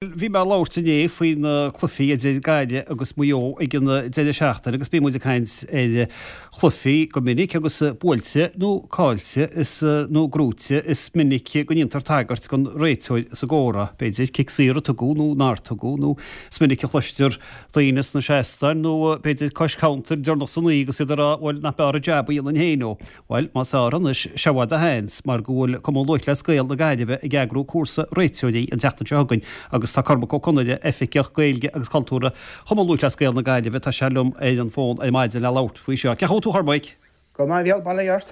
Bhí mé ag labhairt inné faoi na cluichí idir Gaillimh agus Maigh Eo ag an deireadh seachtaine agus bíonn muid ag caint ar chluichí go minic agus buailte nó caillte is nó gnóite is minic go ndéantar tagairt don réiteoir sa gcomhrá, b'fhéidir cic saor a tugadh nó nár tugadh nó is minic a chloistear daoine sna seastáin nó b'fhéidir cois counter deireanach san oíche agus iad ag rá bhuel nach mb'fhearr an jab a dhéanfainn féin ó. Bhuel, más fearr anois, seo i bhfad do sheans, mar go bhfuil Cumann Lúthchleas Gael na Gaillimhe ag eagrú cúrsa réiteoirí an tseachtain seo chugainn agus tá Cormac Ó Conaire, Oifigeach Gaeilge agus Cultúrtha Chumann Lúthchleas Gael na Gaillimhe, tá sé liom ar an bhfón ar maidin le labhairt faoi seo. Cén chaoi a bhfuil tú a Chormaic? Go maith, a Mhícheáil, bail ó Dhia ort.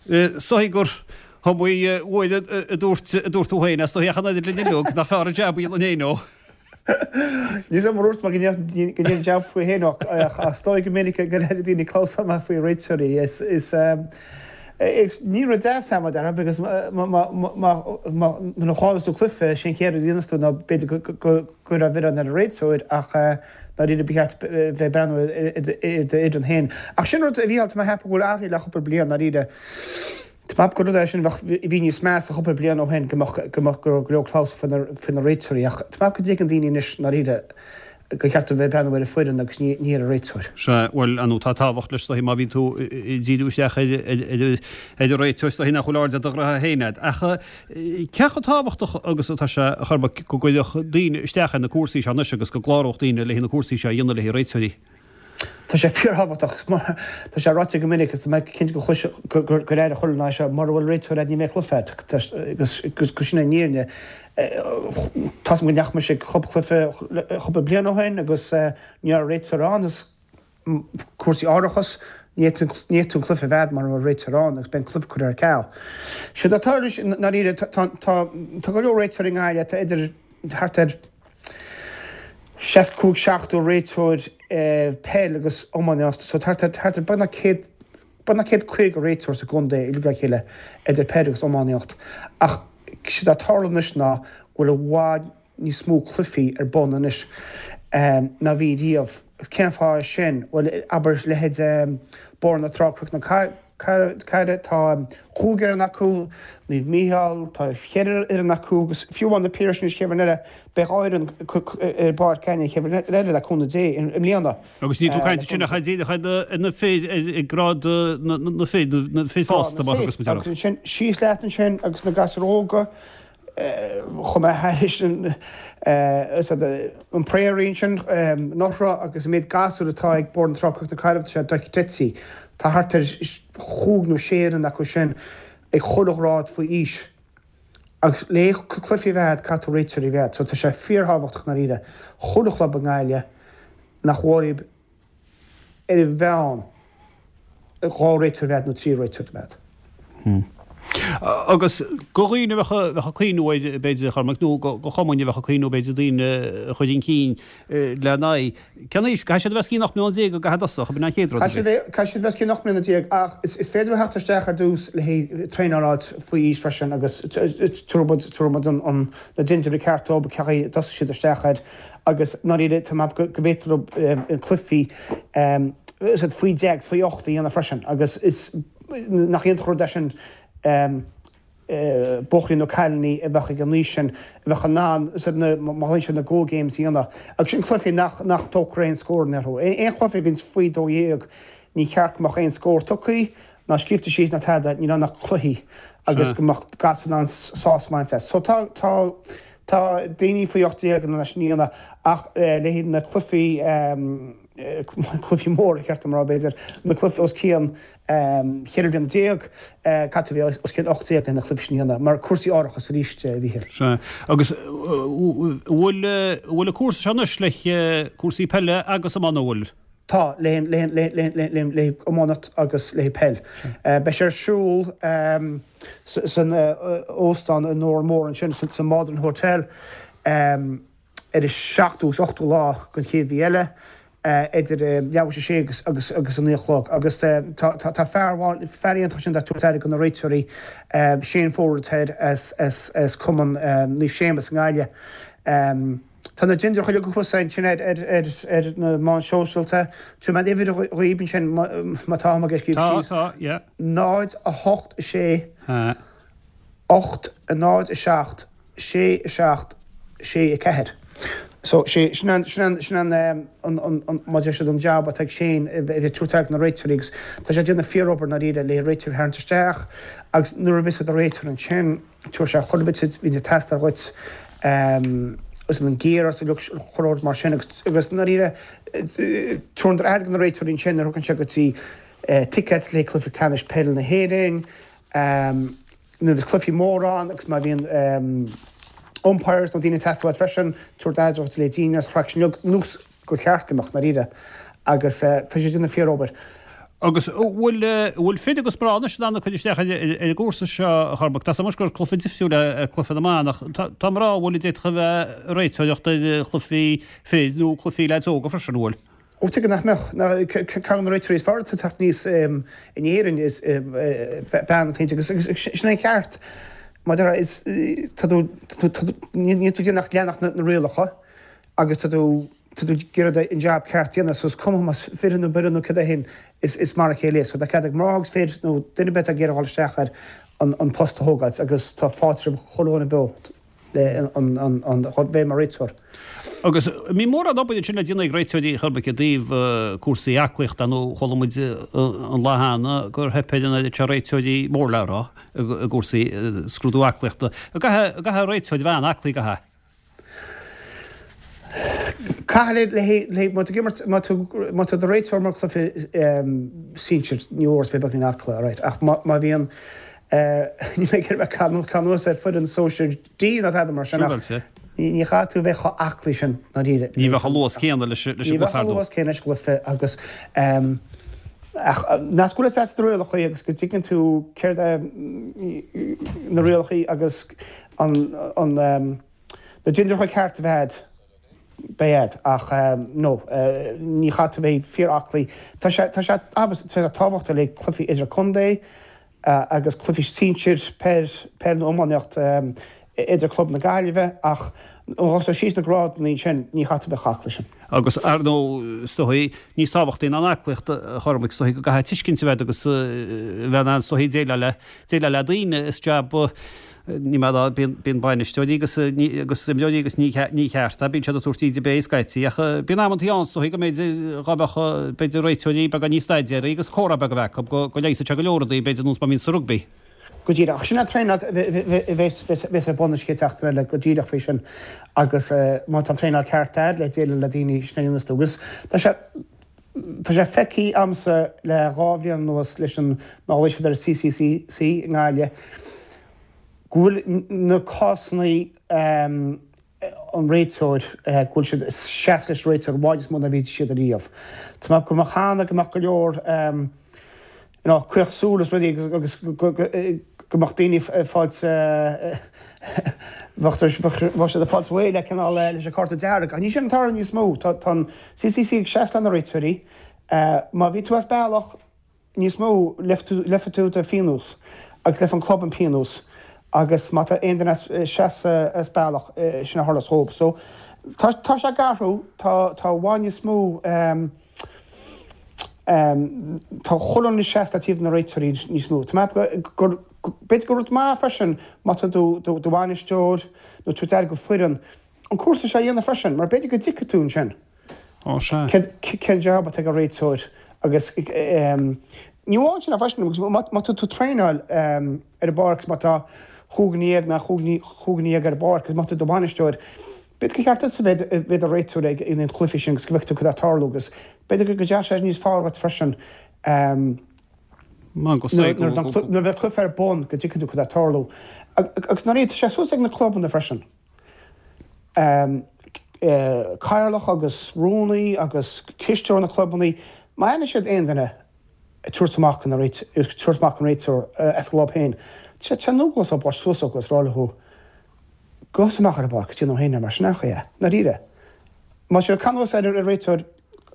Is dóigh gur iomaí uair a dúirt a dúirt tú féin, is dóigh ach an oiread linn uilig, nach fearr an jab a dhéanfainn féin ó. Níl 's agam ar dhúirt mé go ndéanfainn jab faoi féin ach is dóigh go minic go ndeireann daoine clamhsán maith faoi réiteoirí. Is ní rud deas é mar déarfá agus nuair a chailleanns tú cluiche, sé an chéad rud a dhéanas tú ná b'fhéidir go gcuirfeá an milleán ar an réiteoir ach dáiríre ba cheart bheith ag breathnú ar d'fhoireann féin. Ach sin rud a Mhícheáil, tá mé ag ceapadh go bhfuil athraithe le cúpla bliain dáiríre. Tá mé ag ceapadh gur rud é sin a bheadh, a bhí níos measa cúpla bliain ó shin, go mbeadh, go mbeadh, go raibh go leor clamhsán faoi na, faoi na réiteoirí ach tá mé ag ceapadh go dtuigeann daoine anois i ndáiríre gur cheart dóibh bheith ag breathnú ar an foireann agus ní, ní ar an réiteoir. Sea, bhuel, ar ndóigh tá tábhacht leis is dóigh má bhíonn tú ag díriú isteach ar, ar, ar, ar an réiteoir is dóigh nach bhfuil aird ar do ghraithe féin agat. Ach cé chomh tábhachtach agus atá sé, a Chormaic, go gcuirfeadh daoine isteach ar na cúrsaí seo anois agus go gcláródh daoine le haghaidh na cúrsaí seo a dhéanamh le haghaidh réiteoirí? Tá sé fíorthábhachtach. Tá sé ráite go minic agus tá mé cinnte go chlois, gur airigh chuile dhuine é seo, mura bhfuil réiteoir agat ní bheidh cluiche agat agus go sin an fhírinne. Tá's agam go ndeachaigh mise ag cúpla cluiche cúpla bliain ó shin agus ní raibh réiteoir ann agus cúrsaí árachais, ní fhéadfaí an cluiche a bheith agat mura bhfuil réiteoir ann agus beidh an cluiche curtha ar ceal. Séard atá ag tarlú i ndáiríre, tá go leor réiteoirí i nGaillimh, tá idir thart ar 65, 70 réiteoir peil agus iománaíocht so thart ar thart ar beagnach 100 beagnach 150 réiteoir sa gcontae uilig le chéile idir peil agus iománaíocht ach séard atá ag tarlú anois ná go bhfuil i bhfad níos mó cluichí ar bun anois ná bhí riamh. Cén fáth é sin? Bhuel abair leithéid Bóthar na Trá Cnoc na Carraige, tá chúig fhoireann acu, Naomh Mícheál, tá cheithre fhoireann acu agus fiú amháin Na Piarais anois chéad bhliain eile, beidh dhá fhoireann ar bpáirc againne an chéad bhliain eile le cúnamh Dé i mbliana. Agus níl tú ag caint ansin ach díreach ar na fir ag grád na fir, na fir fásta mar a thugas muid orthu. Agus ansin síos leat ansin agus na gasúir óga, Chuaigh mé thairis an Prairie ansin anuraidh agus an méid gasúr atá ag Bóthar na Trá Cnoc na Carraige tá sé dochreidte. Tá thart ar chúig nó sé fhoireann acu sin ag chuile ghrád faoi aois. Agus le cluichí a bheith agat caithfidh tú réiteoirí a bheith agat. So tá sé fíorthábhachtach i ndáiríre chuile chlub i nGaillimh nach bhfuil ar an mheán 2 réiteoir a bheith agat nó 3 réiteoir a bheith agat. Agus do dhaoine a bheadh ag cuimhniú air, b'fhéidir, a Chormaic, nó do chumainn a bheadh ag cuimhniú, b'fhéidir, daoine a chur chun cinn lena n-aghaidh, cén aois? Caithfidh siad a bheith os cionn 18 mbliana go gcaithfidh tosach, ab in an chéad rud a bhí? Caithfidh siad a bheith os cionn 18 mbliana ach is féidir leo theacht isteach ar dtús le haghaidh traenáil a fháilt faoi aois freisin agus tabharfaidh muid na dintiúirí ceart dóibh, cén chaoi a dtosóidh siad isteach air. Agus i ndáiríre, tá mé ag ceapadh go bhféadfar leo cluichí faoi 10 agus faoi 8 a dhéanamh freisin agus is nach iontach an rud é sin buachaillí nó cailíní a bheadh ag an aois sin a bheadh in ann má ghlaonn siad na go games a dhéanamh. Agus sin cluichí nach nach dtógfar aon scóranna orthu. Aon chluiche a bhíonns faoi 12 ní cheart go mbeadh aon scór tugtha ná scríobhta síos ná tada, níl ann ach cluichí agus go mbeadh gasúir in ann sásamh a bhaint as. So tá tá Tá daoine faoi 18 in ann é sin a dhéanamh ach le haghaidh na cluichí, cluichí móra, ba cheart dom a rá b'fhéidir, na cluichí os cionn 14 bliana, caithfidh tú a bheith os cionn 18 le na cluichí sin a dhéanamh, mar cúrsaí árachais arís, a Mhíchíl. Sea. Agus an bhfuil, an bhfuil an cúrsa seo anois le cúrsaí peile agus iomána, an bhfuil? Tá, le haghaidh iománaíocht agus le haghaidh peil. Beidh sé ar siúl san óstán i nDórán Mór ansin, sa Maldron Hotel, ar an seachtú agus ochtú lá den chéad mhí eile, idir leathuair tar éis a sé agus agus a naoi a chlog. Agus tá fear fear iontach ansin ag tabhairt aire do na réiteoirí, Shane Forde atá air as Cumann Naomh Séamus i nGaillimh. Tá na dintiúir chuile thuas ansin ar ar na meáin shóisialta. Tabharfaidh mé an uimhir dhaoib ansin má tá am ag scríobh síos. Tá, tá, yeah. 0, 8, 6, 8, 0, 7, 6, 7. 6, 4. So, sé, sin an, sin an, sin an, an, an, an, mar a deir siad, an jab atá ag Shane, a bheith ag tabhairt aire do na réiteoirí agus tá sé ag déanamh fíorobair ndáiríre le réiteoirí a tharraingt isteach agus nuair a bheas do réiteoir ansin, tabharfaidh sé chuile bit a bhíonn ag teastáil dhuit, agus an gear agus chuile rud mar sin agus, agus ndáiríre, tabharann aire do na réiteoirí ansin nuair a thugann sé go dtí tickets le cluiche ceannais peile na hÉireann, Nuair a bhíos cluichí móra ann agus má bhíonn umpires nó daoine ag teastáil uait freisin, tabhair aire duit le daoine agus craic sin uilig nós gur cheart go mbeadh, ndáiríre. Agus tá sé ag déanamh fíor-obair. Agus an bhfuil, bhfuil fir agus mná anois in ann cur isteach ar an gcúrsa seo, a Chormaic? Tá 's agam anois gur cluiche difriúil é cluiche na mban ach tá mná an bhfuil a d'fhéadfadh a bheith ag réiteoireacht ar chluichí fir nó cluichí leaids óga freisin, an bhfuil? Ó tuige nach mbeadh? Ceann de na réiteoirí is fearr atá ag teacht aníos in Éirinn is bean atá inti agus sin é an ceart. Mar a déarfá is tá tú níl tú ag déanamh ach leanacht na rialacha agus tá tú tá tú ag iarraidh an jab ceart a dhéanamh so is cuma más fir nó bean nó cad é féin is mar a chéile é. So tá cead ag mná agus fir nó duine ar bith atá ag iarraidh dhul isteach ar an post a thógáilt agus tá fáilte roimh chuile dhuine beo. le an bheith mar réiteoir. Agus an mbíonn mórán obair ansin le déanamh ag réiteoirí a Chormaic i dtaobh cúrsaí aclaíochta nó chuala muid an lá cheana gur theip ar an oiread seo réiteoirí mór le rá i gcúrsaí scrúdú aclaíochta. An gcaithfidh réiteoir a bheith an-aclaí, an gcaithfidh? Caithfidh le má tá tú ag imirt má tá tú i do réiteoir mar cluiche sinsir ní mór duit bheith beagáinín aclaí alright ach má bhíonn Níl mé ag iarraidh bheith ag cur anuas ar foireann sóisir D ná tada mar sin ach ní chaithfidh tú a bheith chomh aclaí sin ndáiríre. Ní bheadh an luas céanna leis an gcluiche ar ndóigh. Ní bheadh an luas céanna leis an gcluiche agus ach nach go bhfuil fhios agat na rialacha agus go dtuigeann tú céard é na rialacha agus an na dindireacha ceart a bheith agat. Beidh agat, ach no, ní chaithfidh tú bheith fíor-aclaí. Tá sé, tá sé, tá sé tábhachtach le cluichí idir-contae agus cluichí sinsir, peil, peil nó iománaíocht idir club na Gaillimhe ach nuair a síos na grádanna ansin, ní chaithfidh tú bheith chomh aclaí sin. Agus ar ndóigh, is dóigh, níos tábhachtaí ná an aclaíocht, a Chormaic, is dóigh go gcaithfidh tuiscint a bheith agat agus a bheith in ann, is dóigh, déileáil le, déileáil le daoine. Is jab Ní maith ná bíonn bainisteoirí agus agus imreoirí agus ní ní cheart é, bíonn siad ag tabhairt íde béil scaití ach bíonn amantaí ann is dóigh go mb'fhéidir dhá mbeadh b'fhéidir réiteoirí beagán níos staidéaraí agus comhrá beag a bheith acu go go leigheasfadh sé go leor rudaí b'fhéidir nós mar a bhíonn sa rugbaí. Go díreach. Sin an traenáil a bheas ar bun an chéad seachtain eile go díreach faoi sin agus má tá an traenáil ceart agat le déileáil le daoine sin a dhéanas tú agus tá sé Tá sé feicthe a'msa le dhá bhliain anuas leis an má ghlaoigh siad ar an CCCC i nGaillimh go bhfuil na cásanna an réiteoir go bhfuil siad ag seasamh leis an réiteoir i bhfad níos mó ná bhí siad ariamh. Tá mé go mbeadh cheana go mbeadh go leor you know caoch súl is rudaí agus go mbeadh daoine ag fáilt bheadh siad ag fáilt réidh le cineál leis an cárta dearg. Ach ní sin an tarla níos mó. Tá an CCC ag seasamh le na réiteoirí. Má bhí tú as bealach níos mó leigfidh tú do phionós agus leigfidh an club an pionós agus má tá aon duine as seasamh as bealach sin a tharlós dhóibh. So tá sé ag athrú tá tá i bhfad níos mó Tá chuile dhuine ag seasamh le taobh na réiteoirí níos mó. Tá mé ag ceapadh gur, b'fhéidir gur rud maith freisin má tá tú do bhainisteoir nó tú ag do foireann, an cúrsa seo a dhéanamh freisin mar b'fhéidir go dtuigfidh tú ansin Ó sea. cén jab atá ag an réiteoir agus ní amháin sin freisin agus má tá tú ag traenáil ar an bpáirc má tá chúig dhuine dhéag nó chúig dhuine dhéag ar an bpáirc agus má tá tú do bhainisteoir, B'fhéidir gur cheart duitse bheith i do réiteoir ag an chluiche sin agus go bhfeicfidh tú cad atá ag tarlú agus b'fhéidir go dteacht sé níos fearr dhuit freisin nuair a bheidh cluiche ar bun go dtuigfidh tú cad atá ag tarlú. Agus nuair tá sé suas ag na clubanna freisin. Cathaoirleach agus rúnaí agus cisteoir na clubanna, má aithneann siad aon duine ag tabhairt amach an tabhairt amach an réiteoir as a gclub féin, tá sé an-eaglasta labhairt suas agus rá leo Gabh amach ar an bpáirc, déan tú féin é mar sin nach é? Ndáiríre. Má tá sé ag cur anuas ar an réiteoir,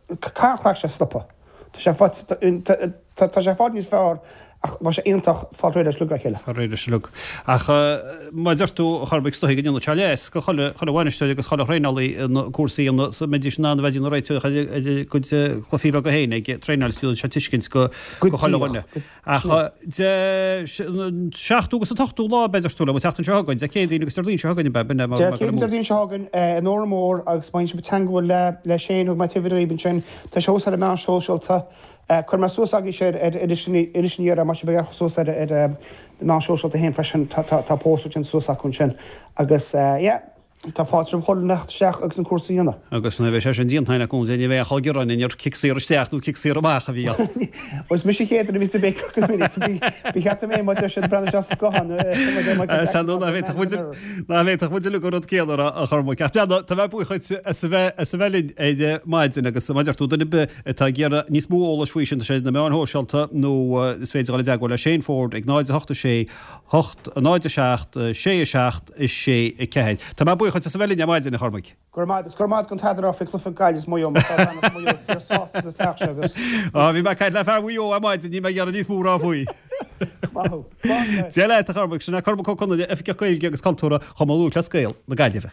caithfidh an chraic seo stopadh. Tá sé tá sé i bhfad níos fearr. Ach bheadh sé iontach fáil réidh leis uilig le chéile. Fáil réidh leis uilig. Ach mar a deir tú, a Chormaic, is dóigh go ndéanfadh sé leas go chuile bhainisteoir agus chuile thraenálaí na cúrsaí ina mbeidís in ann a bheith ag déanamh réiteach ar a gcuid cluichí beaga féin ag traenáil is déanann sé tuiscint go chuile dhuine. Ach Dé an seachtú agus an t-ochtú lá b'fhéidir tú le an tseachtain seo chugainn, Dé Céadaoin agus Déardaoin seo chugainn ab ea? B'in é mar Dé Céadaoin Déardaoin seo chugainn in Órán Mór agus má bhíonn sibh ag teagmháil le Shane thug mé an t-uimhir dhaoibh ansin, tá sé thuas ar na meáin shóisialta. Cuirfidh mé suas agaibhse ar Inis an Iarthair, má tá sibh ag amharc suas ar na meáin shóisialta féin freisin, tá post déanta suas acu ansin agus yeah, tá fáilte roimh chuile dhuine theacht isteach agus an cúrsa a dhéanamh. Agus nuair a bheidh sé sin déanta againn acu, ní bheidh aon chol gearáin ar cic saor isteach nó cic saor amach a bhí ann. Bhuel, is mise an chéad duine a bhíonns ag béiceach go minic, so ba cheart dom é má deir siad breathnú isteach sa scoitheán. Sea, nó ná féadfadh muid, ná féadfadh muid uilig an rud céanna a rá, a Chormaic. Ach breathnaigh, tá mé buíoch dhuit as a bheith, as a bheith linn ar maidin agus mar a deir tú, duine ar bith atá ag iarraidh níos mó eolais faoi sin, tá sé ar na meáin shóisialta nó is féidir dul i dteagmháil le Shane Forde ag 0 8 6 8 0 7 6 7 6 4. Tá mé buíoch dhuit as a bheith linn ar maidin, a Chormaic. Go raibh maith agat. Go raibh maith agat don taidreamh faoi chluiche Gaillimh is Maigh Eo mar tá bean as Maigh Eo fíor sásta sa teach seo agus. Á, bhí mé ag caint le fear Mhaigh Eo ar maidin, níl mé ag iarraidh níos mó a rá faoi. Maith thú. Slán leat. Dia leat, a Chormaic. Sin é Cormac Ó Conghaile, Oifigeach Gaeilge agus Cultúrtha Chumann Lúthchleas Gael na Gaillimhe.